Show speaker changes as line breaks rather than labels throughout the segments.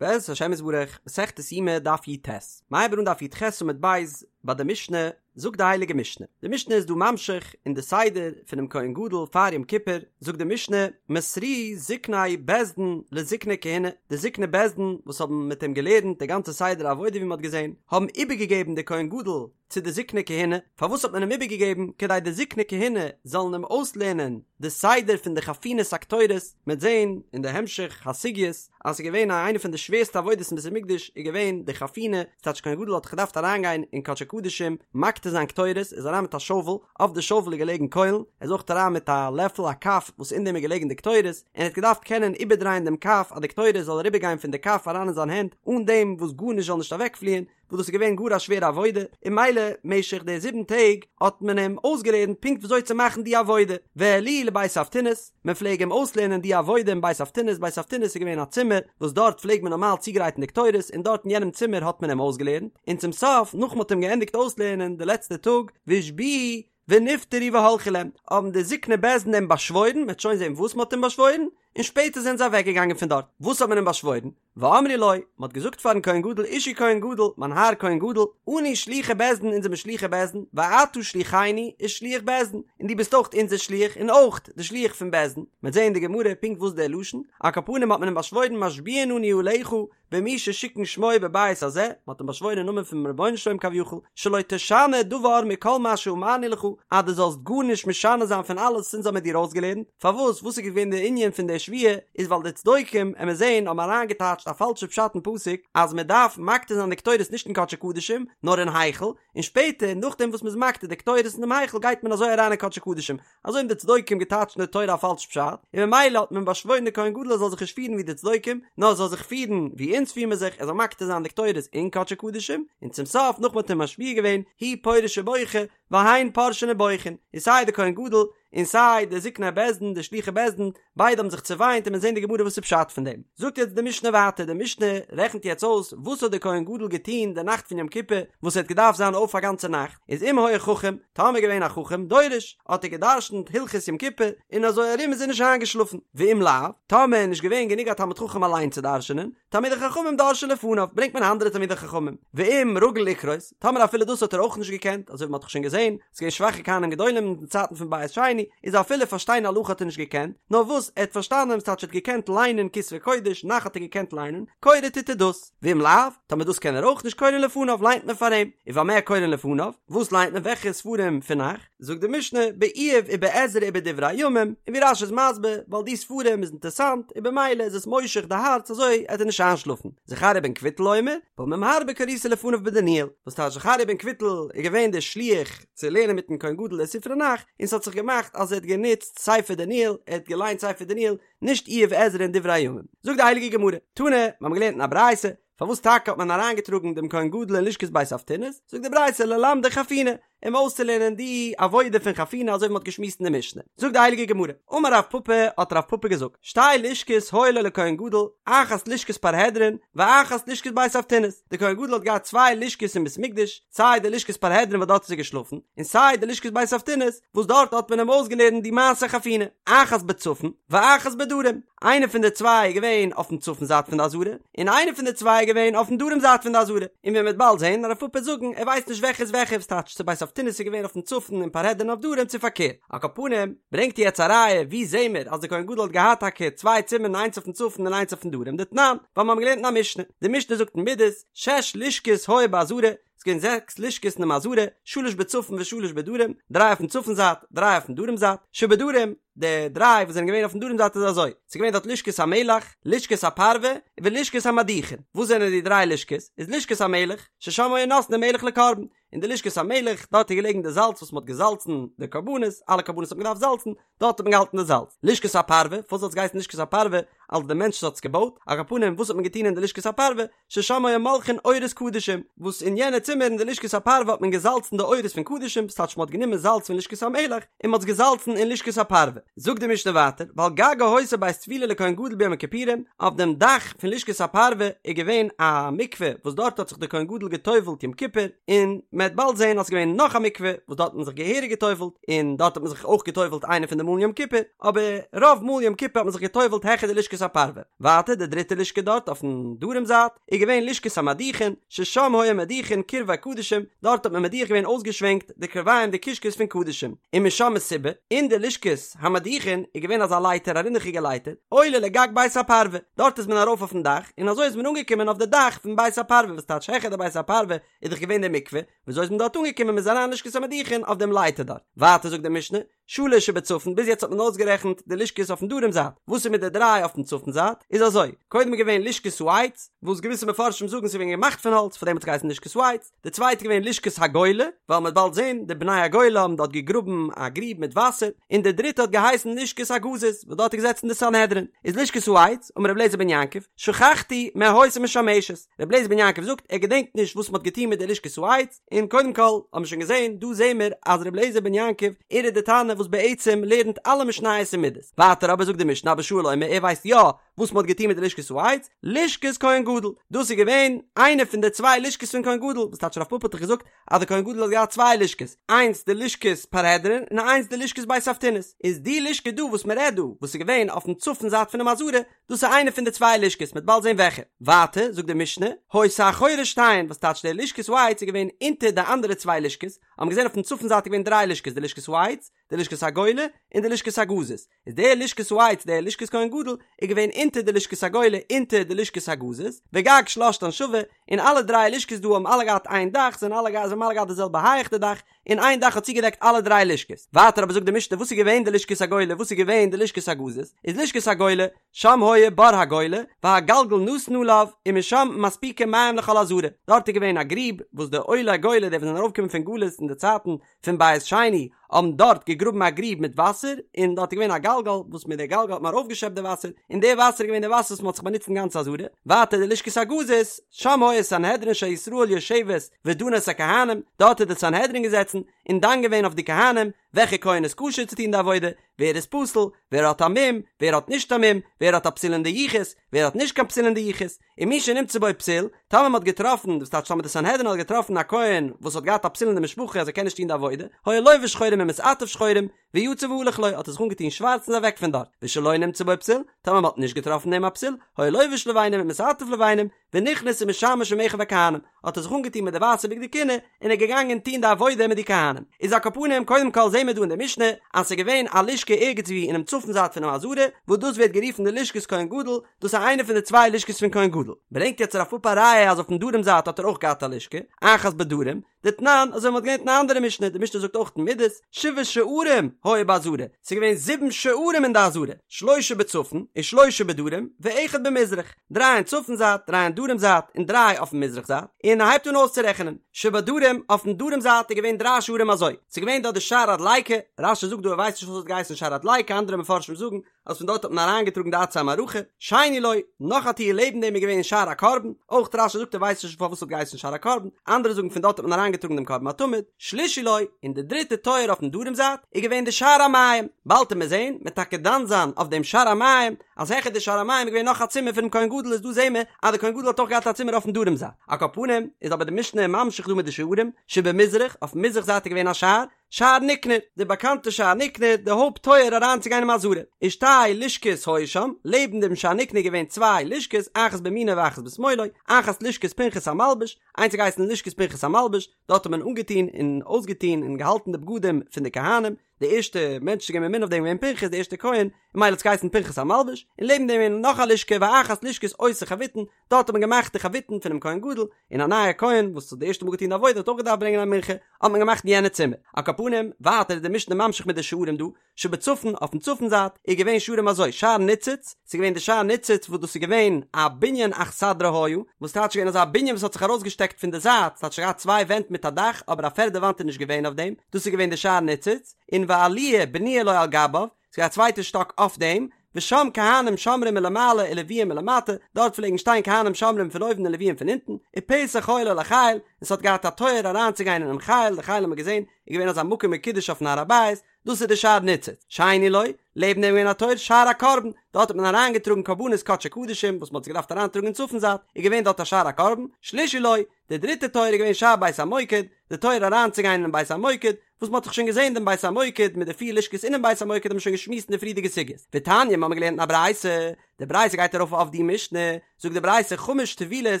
בעזרת השם יתברך, מסכת יומא דף י"ט, מ'הייבט אן דף י"ח עמוד ב', ביי די משנה, זאגט די הייליגע משנה, די משנה איז דא ממשיך אין די סדר פונעם כהן גדול פאר יום כיפור, זאגט די משנה, מסרוהו זקני בית דין לזקני כהונה, די זקני בית דין וואס האבן מיט אים געלערנט די גאנצע סדר העבודה ווי מען האט געזען, האבן איבערגעגעבן די כהן גדול צו די זקני כהונה, פארוואס האט מען אים איבערגעגעבן? כדי די זקני כהונה זאלן אים אויסלערנען די סדר פון די חפינת הקטורת, מ'וועט זען אין די המשך הסוגיות אז ס'איז געווען א איינע פון די שווערסטע עבודות אין בית המקדש איז געווען די חפינה, ס'טייטש כהן גדול האט געדארפט אריינגיין אין קדשי קדשים מקטיר זיין קטורת, איז אריין מיט א שאוול, אויף די שאוול איז געלעגן קוילן, ער איז אויך אריין מיט א לעפל א כף וואס אין דעם איז געלעגן די קטורת, און ער האט געדארפט קענען איבערדרייען דעם כף אז די קטורת זאל אריבערגיין פון די כף אריין אין זיין הענט אן דעם וואס גארנישט זאל נישט אוועקפליען, וואס דאס איז געווען גאר א שווערע עבודה, און ממילא משך די זיבן טעג האט מען אים אויסגעלערנט פונקט וויאזוי צו מאכן די עבודה, והעלוהו לבית אבטינס, מען פלעג אים אויסלערנען די עבודה אין בית אבטינס, בית אבטינס איז געווען א צימער וואס דארט פלעג מען נארמאל צוגרייטן די קטורת, און דארט אין יענעם צימער האט מען אים אויסגעלערנט, און צום סוף נאך מען האט אים געענדיגט אויסלערנען די לעצטע טאג, והשביעוהו ונפטרו והלכו להם, האבן די זקני בית דין אים באשוואוירן, מען וועט שוין זען וואס מען האט אים באשוואוירן, און שפעטער זענען זיי אוועקגעגאנגען פון דארט, וואס האט מען אים באשוואוירן? ואמרו לו, מען האט געזאגט פארן כהן גדול אישי כהן גדול, מיין האר כהן גדול, אנו שלוחי בית דין אונז זעמיר שלוחי בית דין, ואתה שלוחנו ושליח בית דין, און דו ביסט אויך אונזער שליח און אויך די שליח פון בית דין, מען וועט זען אין די גמרא פונקט וואס דער לשון, על כל פנים האט מען אים באשוואוירן משביעין אנו עליך במי ששיכן שמו בבית הזה, מען האט אים באשוואוירן אין נאמען פונעם רבונו של עולם כביכול, שלא תשנה דבר מכל מה שאמרנו לך, אז דו זאלסט גארנישט משנה זיין פון אלעס וואס אונז האבן מיר דיר אויסגעלערנט, פארוואס, וואס איז געווען די ענין פון די שבועה, איז ווייל די צדוקים, עמיר זעהן, האבן אריינגעטייטשט א פאלשע פשט אין פסוק, אז מען דארף מקטיר זיין די קטורת נישט אין קדשי קדשים, נאר אין היכל, און שפעטער, נאכדעם וואס מען איז מקטיר די קטורת אין דעם היכל גייט מען אזוי אריין אין קדשי קדשים, אזוי האבן די צדוקים געטייטשט אין די תורה א פאלש פשט, און ממילא האט מען באשוואוירן די כהן גדול ער זאל זיך נישט פירן ווי די צדוקים, נאר ער זאל זיך פירן ווי אונז פיר מיר זיך, ער זאל מקטיר זיין די קטורת אין קדשי קדשים, און צום סוף נאך מען האט אים משביע געווען, הוא פורש ובוכה, והן פורשין ובוכין, און סיי די כהן גדול, און סיי די זקני בית דין, די שלוחי בית דין, ביידע האבן זיך צעוויינט און מיר זעהן די גמרא וואס איז פשט פון דעם. זאגט יעצט די משנה ווייטער, די משנה רעכנט יעצט אויס וואס האט דער כהן גדול געטון די נאכט פון יום כיפור וואס ער האט געדארפט זיין אויף א גאנצע נאכט, איז אם היה חכם, טאמער געווען א חכם, דורש, האט ער גע'דרש'נט הלכות יום כיפור, און אזוי ארום איז ער נישט איינגעשלאפן, ואם לאו, טאמער איז נישט געווען גענוג א תלמיד חכם אליין צו דרש'נען, תלמידי חכמים דורשין לפניו, ברענגט מען אנדערע תלמידי חכמים, ואם רגיל לקרות, טאמער אפילו דאס האט ער אויך נישט געקענט, אזוי ווי מען האט דאך שוין געזען, ס'איז געווען שוואכע כהנים גדולים אין די צייטן פון בית שני, איז אפילו פארשטיין הלכה האט ער נישט געקענט, נאר וואס ער האט פארשטאנען, ס'טייטש ער האט געקענט ליינען כתבי קודש, נ"ך האט ער געקענט ליינען, קורא טוט ער דאס, ואם לאו, טאמער דאס קען ער אויך נישט קורין לפניו ליינט מען פאר אים, ובמה קורין לפניו, וואס ליינט מען וועלכע ספרים פון נ"ך, זאגט די משנה, באיוב ובעזרא ובדברי הימים, און ווי רש"י איז מסביר, ווייל די ספרים איז אינטערסאנט, און במילא איז עס מושך די הארץ אזוי עט ער נישט איינשלאפן. זכריה בן קבוטל אומר, פעמים הרבה קריתי לפניו בדניאל, וואס טייטש זכריה בן קבוטל איז געווען דער שליח צו לערנען מיטן כהן גדול די ספרי נ"ך, און ס'האט זיך געמאכט אז ער האט גענוצט ספר דניאל, ער האט געליינט ספר דניאל, נישט איוב עזרא און דברי הימים. זאגט די הייליגע גמרא, תנא, מיר האבן געלערנט אין א ברייתא, פארוואס טאקע האט מען אריינגעטראגן דעם כהן גדול אין לשכת בית אבטינס, זאגט די ברייתא ללמדו חפינה, אים אויסצולערנען די עבודה פון חפינה אזוי ווי מ'האט געשמועסט אין די משנה. זאגט די הייליגע גמרא, אמר רב פפא, האט רב פפא געזאגט, שתי לשכות היו לו לכהן גדול, אחת לשכת פרהדרין, ואחת לשכת בית אבטינס, די כהן גדול האט געהאט צוויי לשכות אין בית מקדש, סיי די לשכת פרהדרין וואס דארט איז ער געשלאפן, און סיי די לשכת בית אבטינס וואס דארט האט מען אים אויסגעלערנט די מעשה חפינה, אחת בצפון, ואחת בדרום, איינע פון די צוויי איז געווען אויפן צפון זייט פון די עזרה, און איינע פון די צוויי איז געווען אויפן דרום זייט פון די עזרה, און ווי מ'וועט באלד זען רב פפא וועט זאגן ער ווייסט נישט וועלכע איז וועלכע וואס טייטש צו בית אבטינס איז געווען אויפן צפון און פרהדרין אויף דרום צו פארקערט. על כל פנים, ברענגט ער יעצט א ראיה ווי זעהן מיר אז די כהן גדול האט געהאט טאקע צוויי צימערן איינס אויפן צפון און איינס אויפן דרום דתנן, ווייל מיר האבן געלערנט אין א משנה, די משנה זאגט אין מידות, שש לשכות היו בעזרה, ס'איז געווען זעקס לשכות אינעם עזרה, שלש בצפון ושלש בדרום, דריי אויפן צפון זייט, דריי אויפן דרום זייט, שבדרום, די דריי וואס זענען געווען אויפן דרום זייט איז אזוי, ס'איז געווען דארט לשכת המלח, לשכת הפרווה, ולשכת המדיחין, וואס זענען די דריי לשכות? איז לשכת המלח, ששם היו נותנין מלח לקרבן, אין די לשכת המלח, דארט איז געלעגן די זאלץ וואס מ'האט געזאלצן די קרבנות, אלע קרבנות האט מען געדארפט זאלצן, דארט האט מען געהאלטן די זאלץ. לשכת הפרווה, פארוואס האט עס געהייסן לשכת הפרווה? אלס די מענטש וואס האט עס געבויט, על כל פנים וואס האט מען געטון אין די לשכת הפרווה? ששם היו מולחין עורות קדשים, וואס אין יענע צימער אין די לשכת הפרווה האט מען געזאלצן די עורות פון קדשים, ס'טייטש מ'האט גענומען זאלץ פון לשכת המלח און מ'האט עס געזאלצן אין לשכת הפרווה. זאגט די משנה ווייטער, ועל גגה היתה בית טבילה לכהן גדול ביום הכיפורים, אויף דעם דאך פון לשכת הפרווה איז געווען א מקווה וואס דארט האט זיך דער כהן גדול גע'טובל'ט יום כיפור, און מ'וועט באלד זען אז ס'איז געווען נאך א מקווה וואס דארט האט מען זיך געהעריג גע'טובל'ט, און דארט האט מען זיך אויך גע'טובל'ט איינע פון די מאלן יום כיפור, אבער רוב מאל יום כיפור האט מען זיך גע'טובל'ט העכער די לשכת. הפרווה. ווייטער די דריטע לשכה דארט אויפן דרום זייט איז געווען לשכת המדיחין, ששם היו מדיחין קרבי קדשים, דארט האט מען מדיח געווען אויסגעשווענקט די קרביים די קישקעס פון קדשים, ומשם מסיבה, אין די לשכת המדיחין איז געווען אזא לייטער א רינדעכיגע לייטער, עולה לגג בית הפרווה, דארט איז מען ארויף אויפן דאך, און אזוי איז מען אנגעקומען אויף די דאך פון בית הפרווה וואס טייטש העכער די בית הפרווה איז דאך געווען די מקווה, וויאזוי איז מען דארט אנגעקומען מען איז אריין לשכת המדיחין אויף דעם לייטער דארט, ווייטער זאגט די משנה, שלש שבצפון, ביז יעצט האט מען אויסגערעכנט די לשכות אויפן דרום זייט, וואס איז מיט די דריי אויפן צפון זייט? איז אזוי, קודם איז געווען לשכת העץ, וואס געוויסע מפרשים זאגן ס'איז געווען געמאכט פון האלץ פאר דעם האט עס געהייסן לשכת העץ, די צווייטע איז געווען לשכת הגולה, ווייל מ'וועט באלד זען, די בני הגולה האבן דארט געגראבן א גריב מיט וואסער, און די דריטע האט געהייסן לשכת הגזית, וואס דארט איז געזעצן די סנהדרין, איז לשכת העץ, אמר רבי אליעזר בן יעקב, שכחתי מה היתה משמשת, רבי אליעזר בן יעקב זאגט ער געדענקט נישט וואס מ'האט געטון מיט די לשכת העץ, און קודם כל האבן מיר שוין געזען, דא זעהן מיר אז רבי אליעזר בן יעקב, ער איז די תנא וואס בעצם לערנט אלע משניות אין מידות. ווייטער אבער זאגט די משנה אבא שאול אומר ער ווייסט יא וואס מ'האט געטון מיט די לשכת העץ, לשכת כהן גדול, דאס איז געווען איינע פון די צוויי לשכות פון כהן גדול, וואס טייטש רב פפא האט דאך געזאגט אז די כהן גדול האט געהאט צוויי לשכות, איינס די לשכת פרהדרין און איינס די לשכת בית אבטינס, איז די לשכה דא וואס מ'רעדט דא, וואס איז געווען אויפן צפון זייט פונעם עזרה, דאס איז איינע פון די צוויי לשכות, מ'וועט באלד זען וועלכע. ווייטער זאגט די משנה, היתה אחורי שתיהן, וואס טייטש די לשכת העץ איז געווען אונטער די אנדערע צוויי לשכות, האבן געזען אויפן צפון זייט איז געווען דריי לשכות, די לשכת העץ, די לשכת הגולה, און די לשכת הגזית. איז די לשכת העץ, די לשכת כהן גדול, איז געווען אונטער די לשכת הגולה, אונטער די לשכת הגזית, וגג שלשתן שווה, און אלע דריי לשכות דא האבן אלע געהאט איין דאך, זענען אלע זיי האבן אלע געהאט די זעלבע הייך די דאך, און איין דאך האט צוגעדעקט אלע דריי לשכות. ווייטער אבער זאגט די משנה וואס איז געווען די לשכת הגולה וואס איז געווען די לשכת הגזית, איז לשכת הגולה, שם היה בור הגולה, והגלגל נתון עליו, ומשם מספיקין מים לכל העזרה, דארט איז געווען א גריב וואס די עולי הגולה די וואס זענען ארויפגעקומען פון גלות אין די צייטן פון בית שני האבן דארט געגראבן א גריב מיט וואסער, און דארט איז געווען א גלגל וואס מיט די גלגל האט מען ארויפגעשעפט די וואסער, און די וואסער איז געווען די וואסער וואס מען האט זיך באנוצט אין גאנץ עזרה, ווייטער די לשכת הגזית, שם היה סנהדרין של ישראל יושבת ודנה את הכהנים, דארט איז די סנהדרין געזעצן און דן געווען אויף די כהנים, וועלכע כהן איז כשר צו טון די עבודה, ווער איז פסול, ווער האט א מום, ווער האט נישט א מום, ווער האט א פסול אין די יחוס, ווער האט נישט קיין פסול אין די יחוס, ומי שנמצא בו פסול, טאמער מען האט געטראפן, דאס טייטש טאמער די סנהדרין האט געטראפן א כהן וואס האט געהאט א פסול אין די משפחה אז ער קען נישט טון די עבודה, היה לובש שחורים ומתעטף שחורים, ויצא והלך לו, האט ער זיך אנגעטון שווארץ און איז אוועק פון דארט, ושלא נמצא בו פסול, טאמער מען האט נישט געטראפן אין אים א פסול, היה לובש לבנים ומתעטף לבנים, ונכנס ומשמש עם אחיו הכהנים, האט ער זיך אנגעטון מיט די ווייסע בגדי כהונה, און איז געגאנגען טון די עבודה מיט די כהנים. איז על כל פנים, קודם כל זעהן מיר דא אין די משנה, אז ס'איז געווען א לשכה ערגעץ וואו אינעם צפון זייט פונעם עזרה, וואס דאס ווערט גערופן די לשכת כהן גדול, דאס איז איינע פון די צוויי לשכות פון כהן גדול. ברענגט יעצט רב פפא א ראיה אז אויפן דרום זייט האט ער אויך געהאט א לשכה, אחת בדרום, דתנן, אזוי ווי מ'האט געלערנט אין א אנדערע משנה, די משנה זאגט אויך אין מידות, שבעה שערים היו בעזרה, ס'איז געווען זיבן שערים אין די עזרה, שלשה בצפון, ושלשה בדרום, ואחד במזרח, דריי אין צפון זייט, דריי אין דרום זייט, און דריי אויפן מזרח זייט, און ער הייבט אן אויסצורעכענען, שבדרום, אויפן דרום זייט איז געווען דריי שערים אזוי, ס'איז געווען דארט די שער הדליקה, רש"י זאגט דא ער ווייסט נישט פארוואס ס'האט געהייסן שער הדליקה, אנדערע מפרשים זאגן אז פון דארט האט מען אריינגעטראגן די עצי המערכה, שני לו, נאך א טיר לעבן דעם איז געווען שער הקרבן, אויך רש"י זאגט ער ווייסט נישט פארוואס ס'האט געהייסן שער הקרבן, אנדערע זאגן פון דארט האט מען אריינגעטראגן דעם קרבן התמיד, שלישי לו, און די דריטע טויער אויפן דרום זייט איז געווען די שער המים, באלד וועט מען זען, מ'וועט טאקע דן זיין אויף דעם שער המים, אז העכער די שער המים איז געווען נאך א צימער פונעם כהן גדול איז דא זעהן מיר אז די כהן גדול האט אויך געהאט א צימער אויפן דרום זייט, על כל פנים איז אבער די משנה ממשיך דא מיט די שערים, שבמזרח, אויפן מזרח זייט איז געווען א שער, שער ניקנור, די באקאנטע שער ניקנור, די הויפט טויער אריינצוגיין אין עזרה, ושתי לשכות היו שם, לעבן דעם שער ניקנור איז געווען צוויי לשכות, אחת בימינו ואחת בשמאלו, אחת לשכת פנחס המלבש, איינס האט געהייסן לשכת פנחס המלבש, דארט האט מען אנגעטון און אויסגעטון און געהאלטן די בגדים פון די כהנים, די ערשטע מענטש צו געווען ממונה אויף דעם איז געווען פנחס די ערשטע כהן, און ממילא האט עס געהייסן פנחס המלבש, און לעבן דעם איז נאך א לשכה ואחת לשכת עושי חביתין, דארט האט מען געמאכט די חביתין פונעם כהן גדול, און א נייער כהן וואס האט די ערשטע מאל געטון די עבודה האט אויך געדארפט ברענגען א מנחה, האט מען געמאכט אין יענע צימער. על כל פנים, ווייטער איז די משנה ממשיך מיט די שערים דא, שבצפון, אויפן צפון זייט, איז געווען שערים אזוי, שער ניצוץ, ס'איז געווען די שער ניצוץ וואס דאס איז געווען א בנין אכסדרה היה, וואס טייטש געווען אזא בנין וואס האט זיך ארויסגעשטעקט פון די זייט, ס'האט שוין געהאט צוויי ווענט מיט א דאך, אבער א פערדע וואנט איז נישט געווען אויף דעם, דאס איז געווען די שער ניצוץ, און ועליה בנויה לו על גביו, ס'איז געווען א צווייטע שטאק אויף דעם, ושם כהנים שומרים מלמעלה ולוויים מלמטה, דארט פלעגן שטיין כהנים שומרים פון אויבן און לוויים פון אונטן, ופתח היה לו לחיל, און ס'האט געהאט א טויער אריינצוגיין אינעם חיל, די חיל האט מען געזען איז געווען אזא מקום מקודש אויפן הר הבית, דאס איז די שער ניצוץ. שני לו, לעבן דעם איז געווען א טויער שער הקרבן, דארט האט מען אריינגעטראגן קרבנות קדשי קדשים וואס מען האט זיי געדארפט אריינטראגן אין צפון זייט, איז געווען דארט א שער הקרבן, שלישי לו, די דריטע טויער איז געווען שער בית המוקד, די טויער אריינצוגיין אינעם בית המוקד, וואס מ'האט דאך שוין געזען דעם בית המוקד מיט די פיר לשכות אינעם בית המוקד האט מען שוין געשמועסט אין די פריערדיגע סוגיות. ותניא, מ'האמיר געלערנט אין א ברייתא, די ברייתא גייט ארויף אויף די משנה, זאגט די ברייתא חמש טבילות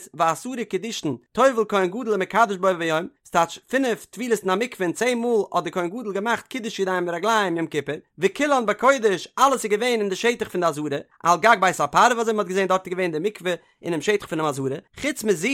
ועשרה קידושין טובל כהן גדול ומקדש בו ביום, ס'טייטש פינף טבילות אין א מקווה און צען מאל האט די כהן גדול געמאכט קידוש ידיים ורגליים יום כיפור, וכולן בקודש, אלעס איז געווען אין די שטח פון די עזרה, על גג בית הפרווה אזוי ווי מ'האט געזען דארט איז געווען די מקווה אינעם שטח פונעם עזרה, חוץ מזו,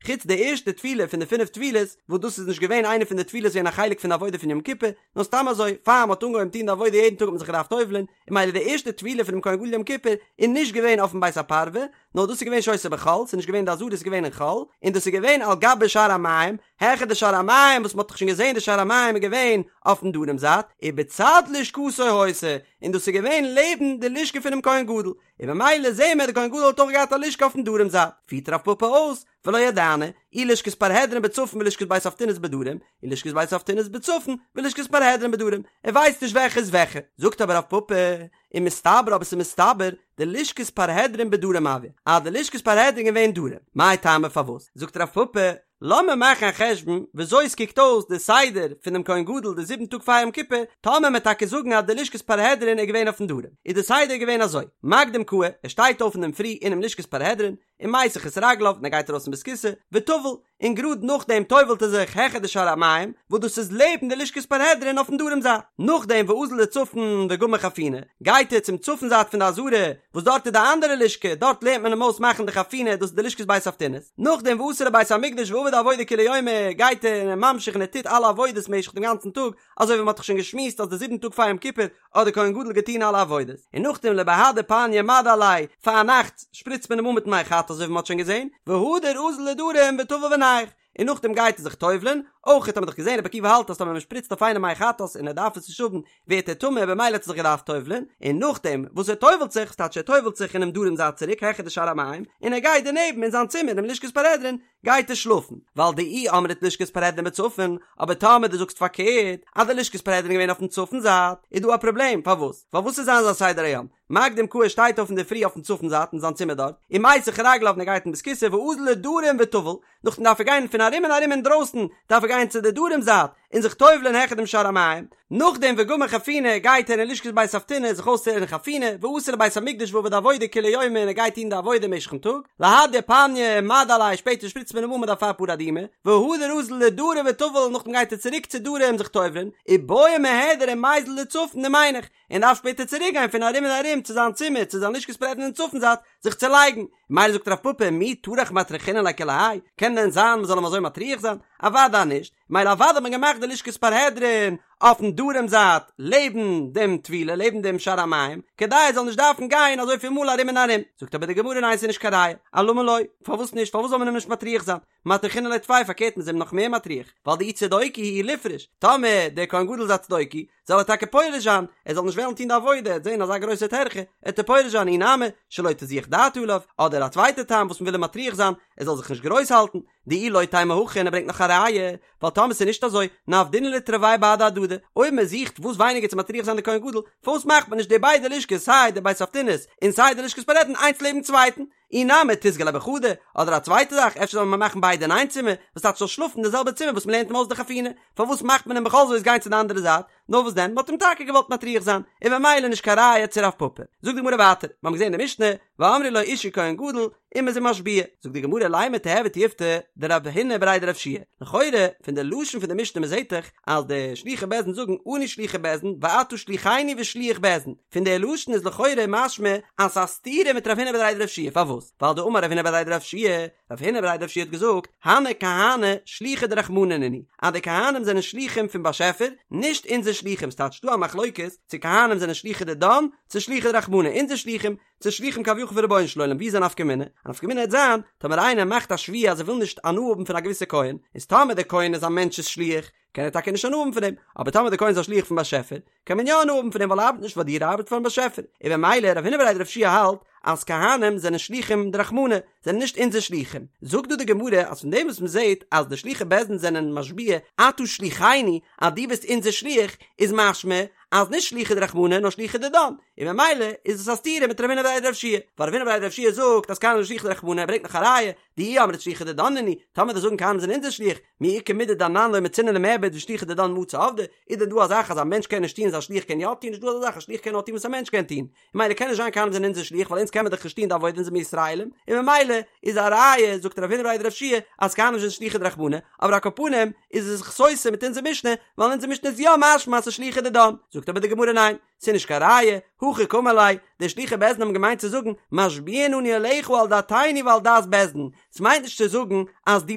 חוץ די ערשטע טבילה פון די פינף טבילות, וואס דאס איז נישט געווען איינע פון די טבילות געווען א חלק פון די עבודה פון יום כיפור, נאר סתם אזוי, פאר מ'האט אנגעהויבן טון די עבודה יעדן טאג האט מען זיך געדארפט טובל'ען, און ממילא די ערשטע טבילה פונעם כהן גדול יום כיפור איז נישט געווען אויפן בית הפרווה, נאר דאס איז געווען שהיתה בחול, ס'איז נישט געווען די עזרה ס'איז געווען אין חול, און דאס איז געווען על גבי שער המים, העכער די שער המים וואס מ'האט דאך שוין געזען די שער המים איז געווען אויפן דרום זייט, ובצד לשכתו היתה, און דאס איז געווען לעבן די לשכה פונעם כהן גדול, און ממילא זעהן מיר די כהן גדול האט אויך געהאט א לשכה אויפן דרום זייט, פירט רב פפא אויס, ולא ידענא, אי לשכת פרהדרין בצפון ולשכת בית אבטינס בדרום, אי לשכת בית אבטינס בצפון ולשכת פרהדרין בדרום, ער ווייסט נישט וועלכע איז וועלכע, זאגט אבער רב פפא, ומסתברא אבער ס'איז מסתבר, דלשכת פרהדרין בדרום הואי, אז די לשכת פרהדרין געווען דרום, מאי טעמא פארוואס? זאגט רב פפא, לאמיר מאכן א חשבון וויאזוי עס קוקט אויס די סדר פון דעם כהן גדול די זיבן טאג פאר יום כיפור, טאמער מ'עט טאקע זאגן אז די לשכת פרהדרין איז געווען אויפן דרום, איז די סדר געווען אזוי, מקדים קאי, ער שטייט אויף אינדערפרי אינעם לשכת פרהדרין, ומיסך את רגליו און ער גייט ארויס אין בית הכסא, וטבל, און גראד נאכדעם טובל'ט ער זיך העכער די שער המים, וואס דאס איז לעבן די לשכת פרהדרין אויפן דרום זייט. נאכדעם ואזיל לצפון וגמר חפינה, גייט ער צום צפון זייט פון די עזרה, וואס דארט איז די אנדערע לשכה, דארט לערנט מען אים אויס מאכן די חפינה, דאס איז די לשכת בית אבטינס. נאכדעם ואתא לבית המקדש ועביד עבודה כולי יומא, גייט ער און ער ממשיך און ער טוט אלע עבודות משך דעם גאנצן טאג, אזוי ווי מען האט דאך שוין געשמועסט אז די זיבן טאג פאר יום כיפור האט דער כהן גדול געטון אלע עבודות, און נאכדעם לבהדי פניא מדו עליה, פארנאכטס שפריצט מען אים אן מיט מי חטאת אזוי ווי מען האט שוין געזען, והדר אזיל לדרום וטביל ונייח, און נאכדעם גייט ער זיך טובל'ען, אויך האט מען דאך געזען רבי עקיבא האלט אז טאמער מען שפריצט אויף איינעם מי חטאת און ער דארף עס נישט האבן ווערט ער טמא במילא האט ער זיך געדארפט טובל'ען, און נאכדעם וואס ער טובל'ט זיך, ס'טייטש ער טובל'ט זיך אינעם דרום זייט צוריק העכער די שער המים, און ער גייט דערנעבן אין זיין צימער אינעם לשכת פרהדרין, גייט ער שלאפן, ווייל דאי אמרת לשכת פרהדרין בצפון, אבער טאמער דו זאגסט פארקערט, אז די לשכת פרהדרין איז געווען אויפן צפון זייט, איז דא א פראבלעם, פארוואס? ווייל וואס איז זיין זיין סדר היום? מקדים קאי שטייט אויף אינדערפרי אויפן צפון זייט אין זיין צימער דארט, ומיסך רגליו און ער גייט אין בית כסא ואזיל לדרום וטביל, נאכדעם דארף ער גיין פון ארום און ארום אינדרויסן דארף ער גיין צו די דרום זייט און זיך טובל'ען העכער דעם שער המים, נאכדעם וגמר חפינה גייט ער אין לשכת בית אבטינס זיך אויסצולערנען חפינה, ואתא לבית המקדש ועביד עבודה כולי יומא און ער גייט טון די עבודה משך'ן טאג, להדי פניא מדו עליה שפעטער שפריצט מען אים אן מיט אפר פרה אדומה, והדר אזיל לדרום וטביל נאכדעם גייט ער צוריק צו דרום זיך טובל'ען, ובעי מהדר ומיזל לצפון ומינח, און דארף שפעטער צוריק גיין פון ארום און ארום צו זיין צימער צו זיין לשכת פרהדרין אין צפון זייט זיך צו לייגן, מילא זאגט רב פפא מי טרח מטרחינן ליה כולי האי, קען דען זיין מ'זאל אים אזוי מטריח זיין? אוודאי נישט, מילא אוודאי האט מען געמאכט די לשכת פרהדרין אויפן דרום זייט לעבן דעם טבילה לעבן דעם שער המים כדי ער זאל נישט דארפן גיין אזויפיל מאל ארום און ארום, זאגט אבער די גמרא ניין ס'איז נישט קיין ראיה, אלמה לא, פארוואס נישט פארוואס זאל מען אים נישט מטריח זיין? מטרחינן ליה טפי פארקערט מ'איז אים נאך מער מטריח, ווייל דאי צדוקי הוא ליפרוש, טאמער דער כהן גדול איז א צדוקי, זאל ער טאקע פורש זיין, ער זאל נישט וועלן טון די עבודה, ער וועט זען אזא גרויסע טרחה, עט ער פורש זיין אי נמי, שלא תזוח דעתו עליו, אדער א צווייטע טעם וואס מ'וויל אים מטריח זיין, ער זאל זיך נישט גרויס האלטן, דאי לא תימא הכי און ער ברענגט נאך א ראיה, ווייל טאמער ס'איז נישט אזוי, נעבדינהו לתרוייהו בהדי הדדי, אויב מען זוכט וואס ווייניגער צו מטריח זיין די כהן גדול, פארוואס מאכט מען נישט די ביידע לשכות סיי די בית אבטינס און סיי די לשכת פרהדרין איינס לעבן צווייטן? אי נמי תיסגי ליה בחדא, אדער א צווייטע זאך, אפשר זאל מען מאכן ביידע אין איין צימער, וואס טייטש זאל שלאפן אין די זעלבע צימער וואס מ'לערנט אים אויס די חפינה, פארוואס מאכט מען אים בכל זאת גיין צו די אנדערע זייט? נאר וואס דען, מ'האט אים טאקע געוואלט מטריח זיין, און ממילא נישט קיין ראיה צו רב פפא. זאגט די גמרא ווייטער, מיר האבן געזען אין די משנה, ואמרו לו אישי כהן גדול, און מ'איז אים משביע. זאגט די גמרא לימא תיהוי תיובתא דרב הונא בריה דרב יהושע לכאורה, פון די לשון פון די משנה מ'זעט דאך אז די שלוחי בית דין זאגן אנו שלוחי בית דין ואתה שלוחנו ושליח בית דין, פון די לשון איז לכאורה משמע אז ס'איז א סתירה מיט רב הונא בריה דרב יהושע פארוואס? ווייל דאמר רב הונא בריה דרב יהושע, רב הונא בריה דרב יהושע האט געזאגט, הני כהני שלוחי דרחמנא נינהו, אז די כהנים זענען שלוחים פון באשעפער, נישט אונזער שלוחים, ס'טייטש ס'דא א מחלוקת צו כהנים זענען שלוחי דידן, צו שלוחי דרחמנא, אונזער שלוחים, צו שלוחים כביכול פון רבונו של עולם, ווי איז א נפקא מינה? א נפקא מינה העט זיין, טאמער איינער מאכט א שבועה אז ער וויל נישט הנאה האבן פון א געוויסע כהן, איז טאמער דער כהן איז א מענטש'ס שליח, קען ער טאקע נישט הנאה האבן פון דעם, אבער טאמער דער כהן איז א שליח פון באשעפער, קען מען יא הנאה האבן פון דעם ווייל ער ארבעט נישט פאר דיר ער ארבעט פארן באשעפער, און במילא רב הונא בריה דרב יהושע האלט אז כהנים זענען שלוחים דרחמנא, זענען נישט אונזער שלוחים, זאגט דא די גמרא אז פון דעם וואס מען זעט אז די שלוחי בית דין זענען משביע אתה שלוחנו אז דו ביסט אונזער שליח איז משמע. אז נישט שלוחי דרחמנא נאר שלוחי דידן, און ממילא איז עס א סתירה מיט רב הונא בריה דרב יהושע, ווייל רב הונא בריה דרב יהושע זאגט אז כהנים זענען שלוחי דרחמנא, ער ברענגט נאך א ראיה, דאי אמרת שלוחי דידן נינהו, טאמער וועסט זאגן כהנים זענען אונזער שליח, מי איכא מידי דאנן לא מצינן למעבד ושלוחי דידן מצו עבדי, איז דען דא א זאך אז א מענטש קען נישט טון וואס א שליח קען יא טון, נישט דא אזא זאך, א שליח קען נאר טון וואס א מענטש קען טון, ממילא קען נישט זיין כהנים זענען אונזער שליח ווייל אונז קען מען דאך נישט טון די עבודה אונז זעמיר ישראלים, און ממילא איז א ראיה זאגט רב הונא בריה דרב יהושע אז כהנים זענען שלוחי דרחמנא, אבער על כל פנים איז עס זיך סותר מיט אונזער משנה ווייל אונזער משנה איז יא משמע אז ס'איז שלוחי דידן, זאגט אבער די גמרא ניין, ס'איז נישט קיין ראיה, הכי קאמר ליה, די שלוחי בית דין האבן געמיינט צו זאגן משביעין אנו עליך על דעתינו ועל דעת בית דין, ס'מיינט נישט צו זאגן אז דו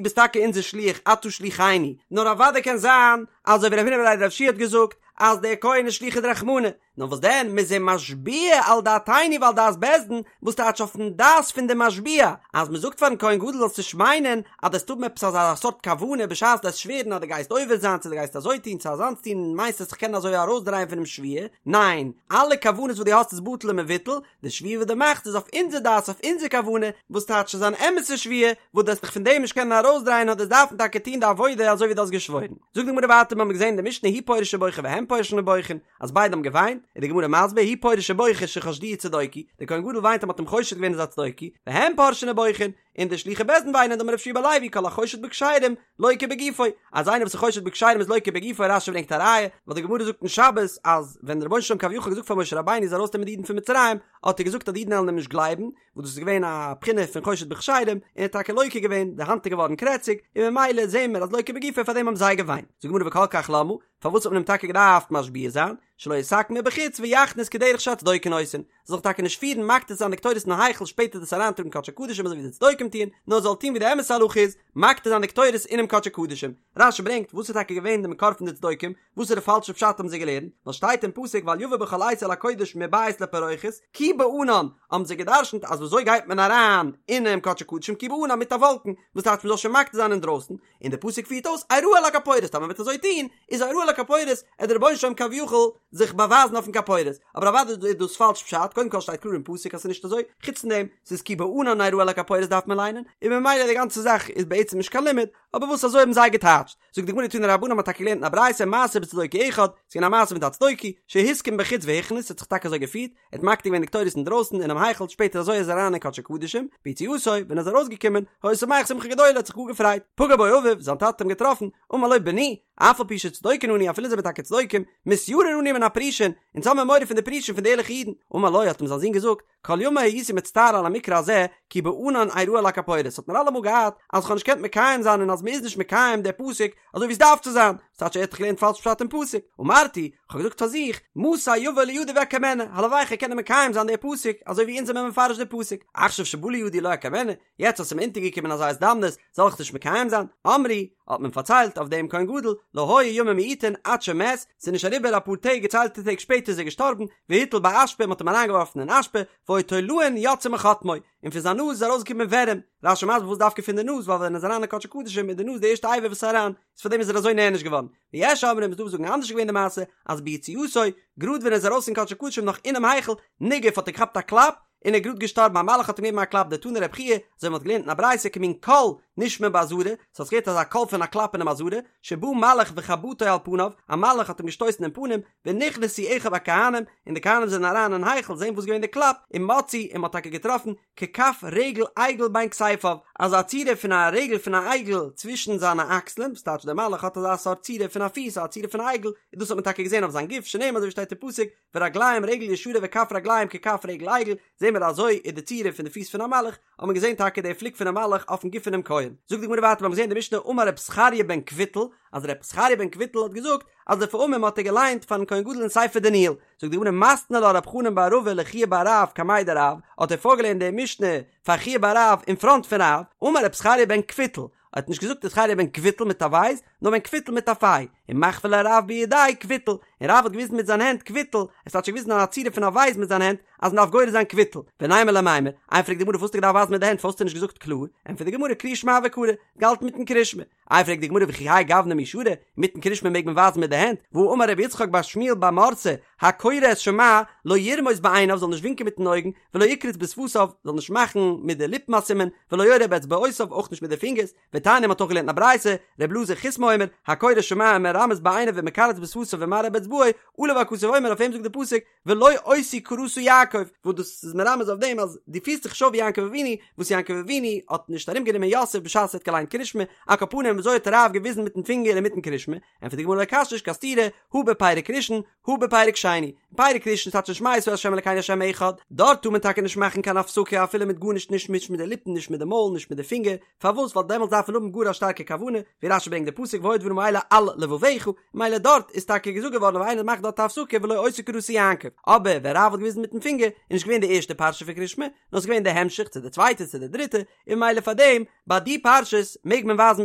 ביסט טאקע אונזער שליח אתה שליחנו, נאר אוודאי קען זיין אזוי ווי רב הונא בריה דרב יהושע האט געזאגט אז דער כהן איז שלוחי דרחמנא, נאר וואס דען, מ'איז אים משביע על דעתינו ועל דעת בית דין, וואס טייטש אויפן דעת פון די משביע, אז מ'זאגט פארן כהן גדול זאלסט נישט מיינען אז דו וועסט האבן עפעס אזא סארט כוונה בשעת דו וועסט שווערן אז דו גייסט עובר זיין צו דו גייסט אזוי טון צו אזאנס טון און מיינסט וועסט זיך קענען אזוי ארויסדרייען פונעם שבועה, ניין, אלע כוונות וואס דו האסט איז בטל ומבוטל, די שבועה וואס דו מאכסט איז אויף אונזער דעת אויף אונזער כוונה, וואס טייטש ס'איז אן אמת'ע שבועה, וואס דו וועסט דיך פון דעם נישט קענען ארויסדרייען נאר דו וועסט דארפן טאקע טון די עבודה אזוי ווי דו האסט געשוואוירן. זאגט די גמרא ווייטער מיר האבן געזען אין די משנה הוא פורש ובוכה והם פורשין ובוכין, אז ביידע האבן געוויינט, איז די גמרא מסביר, הוא פורש ובוכה שחשדוהו צדוקי, דער כהן גדול וויינט אז מ'האט אים חושד געווען איז א צדוקי, והם פורשין ובוכין, און די שלוחי בית דין וויינען דאמר רבי יהושע בן לוי כל החושד בכשרים לוקה בגופו, אז איינער וואס איז חושד בכשרים איז לוקה בגופו, רש"י ברענגט א ראיה, ווייל די גמרא זאגט אין שבת אז ווען דער רבונו של עולם כביכול האט געזאגט פאר משה רבינו זאל ארויסנעמען די אידן פון מצרים, האט ער געזאגט אז די אידן וועלן אים נישט גלייבן, וואס דאס איז געווען א בחינה פון חושד בכשרים, און ער האט טאקע לוקה געווען, די האנט איז געווארן קרעציג, און ממילא זעהן מיר אז לוקה בגופו פאר דעם האבן זיי געוויינט. זאגט די גמרא וכל כך למה, פארוואס האט מען אים טאקע געדארפט משביע זיין, שלא יתקן מבחוץ ויכניס כדרך שהצדוקים עושין, זאל זיך טאקע נישט פירן מקטיר זיין די קטורת אין היכל שפעטער דאס אריינטראגן קדשי קדשים אזוי ווי די צדוקים טוען, נאר זאל טון ווי די אמת'ע הלכה איז, מקטיר זיין די קטורת אינעם קדשי קדשים. רש"י ברענגט, וואס איז טאקע געווען די מקור פון די צדוקים, וואסערע פאלשע פשט האבן זיי געלערנט, ווייל שטייט אין פסוק ואל יבא בכל עת אל הקודש מבית לפרוכת, כי בענן, האבן זיי גע'דרש'נט אז ווי אזוי גייט מען אריין אינעם קדשי קדשים כי בענן מיט א וואלקן, וואס טייטש מען זאל שוין מקטיר זיין אינדרויסן, און דער פסוק פירט אויס אראה על הכפורת טאמער מ'וועט אזוי טון איז אראה על הכפורת עט דער רבונו של עולם כביכול זיך באווייזן אויפן כפורת, אבער אוודאי איז דאס פאלש פשט, קודם כל שטייט קלאר אין פסוק אז ס'איז נישט אזוי, חוץ פון דעם ס'איז כי בענן אראה על הכפורת דארף מען ליינען, און ממילא די גאנצע זאך איז בעצם נישט קיין לימוד, אבער וואס אזוי האבן זיי געטייטשט, זאגט די גמרא תנו רבנן מ'האט טאקע געלערנט אין א ברייתא מעשה בצדוקי אחד, ס'איז געווען א מעשה מיט א צדוקי, שהתקין בחוץ והכניס, ס'האט זיך טאקע אזוי געפירט, ער האט מקטיר געווען די קטורת אינדרויסן אינעם היכל, שפעטער אזוי איז ער אריין אין קדשי קדשים, ביציאתו, ווען ער איז ארויסגעקומען, היה שמח שמחה גדולה, האט זיך גאר געפרייט, פגע בו אביו, זיין טאטע האט אים געטראפן, אמר לו בני, אף על פי שצדוקים אנו, אפילו זעמיר טאקע צדוקים, מתיראין אנו מן הפרושים, אונז האמיר מורא פון די פרושים פון די ערליכע אידן, אמר לו, האט אים זיין זון געזאגט, כל ימי הייתי מצטער על המקרא הזה, כי בענן אראה על הכפורת, האט מיר אלעמאל געארט אז כ'האב נישט געקענט מקיים זיין און אז מ'איז נישט מקיים די פסוק אזוי ווי עס דארף צו זיין, ס'טייטש ער האט דאך געלערנט פאלש פשט אין פסוק, אמרתי, כ'האב געזאגט פאר זיך, מתי יבוא לידי ואקיימנה, הלוואי כ'קען קענען מקיים זיין די פסוק אזוי ווי אונז זעמיר מפרש די פסוק, עכשיו שבא לידי לא אקיימנה, יעצט אז ס'איז מיר אונטערגעקומען אזא הזדמנות, זאל איך נישט מקיים זיין? אמרו, האט מען פארציילט אויף דעם כהן גדול, לא היו ימים מועטין עד שמת, ס'איז נישט אריבער אפאר טעג געציילטע טעג שפעטער איז ער געשטארבן, והוטל באשפה, מ'האט אים אריינגעווארפן אין אשפה, והיו תולעין יוצאין מחוטמו, און פון זיין נאז איז ארויסגעקומען ווערים, רש"י מסביר וואס דווקא פון די נאז, ווייל ווען ער איז אריין אין קדשי קדשים איז די נאז די ערשטע אבר וואס איז אריין, איז פאר דעם איז ער אזוי נענש געווארן. ויש אומרים איז דא וואס זאגן אנדערש איז געווען די מעשה, אז ביציאתו, גראד ווען ער איז ארויס אין קדשי קדשים נאך אינעם היכל, ניגף האט ער געכאפט א קלאפ, און ער איז גראד געשטארבן, א מלאך האט אים געגעבן א קלאפ, דתני רבי חייא, אזוי ווי מ'האט געלערנט אין א ברייתא כמין קול נשמע בעזרה, ס'האט זיך געהערט אזא קול פון א קלאפ אינעם עזרה, שבא מלאך וחבטו על פניו, א מלאך האט אים געשטויסן אין פנים, ונכנסו אחיו הכהנים, און די כהנים זענען אריין אין היכל זען וואס איז געווען די קלאפ, ומצאו, און מ'האט טאקע געטראפן, ככף רגל עגל בין כתפיו, אזא צורה פון א רגל פון א עגל צווישן זיינע אקסלען, וואס טייטש דער מלאך האט אזא סארט צורה פון א פיס, א צורה פון א עגל, און דאס האט מען טאקע געזען אויף זיין גוף, שנאמר אזוי ווי שטייט אין פסוק, ורגליהם רגל ישרה וכף רגליהם ככף רגל עגל, זעהן מיר אזוי איז די צורה פון די פיס פון א מלאך, האט מען געזעהן טאקע די פליק פונעם מלאך אויפן גוף פונעם כהן. זאגט די גמרא ווייטער, מיר האבן געזעהן די משנה אמר רב זכריה בן קבוטל, אז רב זכריה בן קבוטל האט געזאגט אז לפעמים האט ער געליינט פארן כהן גדול אין ספר דניאל, זאגט די גמרא מתני לה רב חנן בר רבא לחייא בר רב קמיה דרב, האט ער פארגעלערנט די משנה פאר חייא בר רב אין פראנט פון רב, אמר רב זכריה בן קפוטל, האט נישט געזאגט ר' זכריה בן קוויטל מיט א בית, נאר בן קפוטל מיט א פיי, ומחוי ליה רב בידיה קוויטל, און רב האט געוויזן מיט זיין הענט קוויטל, עס האט שוין געוויזן א צורה פון א בית מיט זיין הענט, אז מען דארף גורס זיין קוויטל, ונימא ליה מימר, איי פרעגט די גמרא פארוואס האסטו געדארפט ווייזן מיט די הענט פארוואס האסטו נישט געזאגט קלאר, ענטפערט די גמרא קריאת שמע הוה קרי, געהאלטן מיטן קרישמע, איי פרעגט די גמרא וכי האי גוונא מי שרי, מיטן קרישמע מעג מען ווייזן מיט די הענט, והא אמר רבי יצחק בר שמואל בר מרתא, הקורא את שמע, לא ירמוז בעיניו זאל נישט ווינקען מיטן אויגן, ולא יקרוץ בשפתיו, זאל נישט מאכן מיט די ליפן א סימן, ולא יורה באצבעותיו, אויך נישט מיט די פינגערס, ותניא מ'האט אויך געלערנט אין א ברייתא, ר' אלעזר חיסמא אומר, הקורא שמע ומרמז בעיניו ומקרץ בשפתיו ומראה באצבעו. אצבעו, עליו הכתוב אומר אויף אים זאגט די פסוק ולא אותי קראת יעקב, וואס דאס איז מרמז אויף דעם אז דו פירסט זיך נישט אויף ווי יעקב אבינו, וואס יעקב אבינו האט נישט ארום גענומען יוסף בשעת ער האט געליינט קרישמע, על כל פנים וויאזוי האט רב געוויזן מיטן פינגער אינמיטן קרישמע, ענטפערט די גמרא לא קשיא נישט קיין סתירה, הא בפרק ראשון, הא בפרק שני, אין פרק ראשון ס'טייטש אין שמע ישראל ה' אלקינו ה' אחד, דארט טאר מען טאקע נישט מאכן קיין הפסקה אפילו מיט גארנישט נישט מיט די ליפן נישט מיט די מויל נישט מיט די פינגער, פארוואס ווייל דעמאלטס דארף מען האבן גאר א שטארקע כוונה, ווי רשי ברענגט די פסוק והיו הדברים האלה על לבבך, מילא דארט איז טאקע געזאגט געווארן אויב איינער מאכט דארט א הפסקה ולא אותי קראת יעקב, אבער ווען רב האט געוויזן מיטן פינגער איז נישט געווען די ערשטע פרשה פון קרישמע, נאר ס'איז געווען די המשך צו די צווייטע צו די דריטע, און מילא פארדעם ביי די פרשות מעג מען ווייזן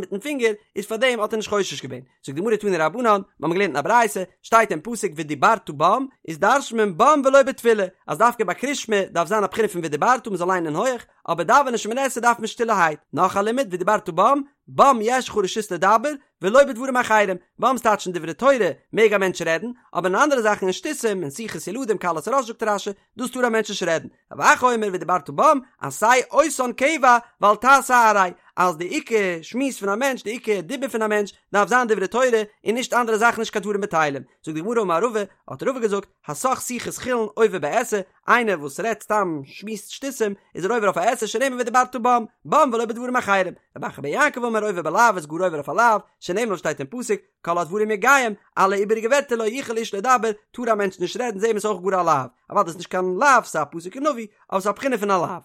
מיטן פינגער, איז פארדעם האט ער נישט חושש געווען. זאגט די גמרא תנו רבנן, מיר האבן געלערנט אין א ברייתא, שטייט אין פסוק ודיברת בם, איז דרש'נט מען בם ולא בתפילה, אז דווקא ביי קרישמע דארף זיין א בחינה פון ודיברת מען זאל ליינען הויך, אבער דאווענען שמונה עשרה דארף מען שטילערהייט, נאך א לימוד ודיברת בם, בם יש לך רשות לדבר, ולא בדברים אחרים, בם ס'טייטש אין דברי תורה מעג א מענטש רעדן, אבער אין אנדערע זאכן אין שטותים, אין שיחות ילדים קלות ראש זאגט רשי, דאס טאר א מענטש נישט רעדן. רב אחא אומר ודיברת בם, עשה אותן קבע ואל תעשה עראי, אז די עיקר שמועס פון א מענטש, די עיקר דיבור פון א מענטש, דארף זיין דברי תורה, און נישט אנדערע זאכן נישט קיין דברים בטלים. זאגט די גמרא אמר רבא, האט רבא געזאגט, הסח שיחת חולין עובר בעשה, איינער וואס רעדט סתם שמועסט שטותים, איז ער עובר אויף א עשה שנאמר ודיברת בם, בם ולא בדברים אחרים. רב אחא בר יעקב אמר עובר בלאו איז גאר עובר אויף א לאו, שנאמר וואס שטייט אין פסוק, כל הדברים יגעים, אלע איבעריגע ווערטער לא יוכל איש לדבר, טאר א מענטש נישט רעדן, זעהן מיר ס'איז אויך גאר א לאו. אוודאי איז נישט קיין לאו, ס'איז א פסוק אין נביא, אבער ס'איז א בחינה פון א לאו.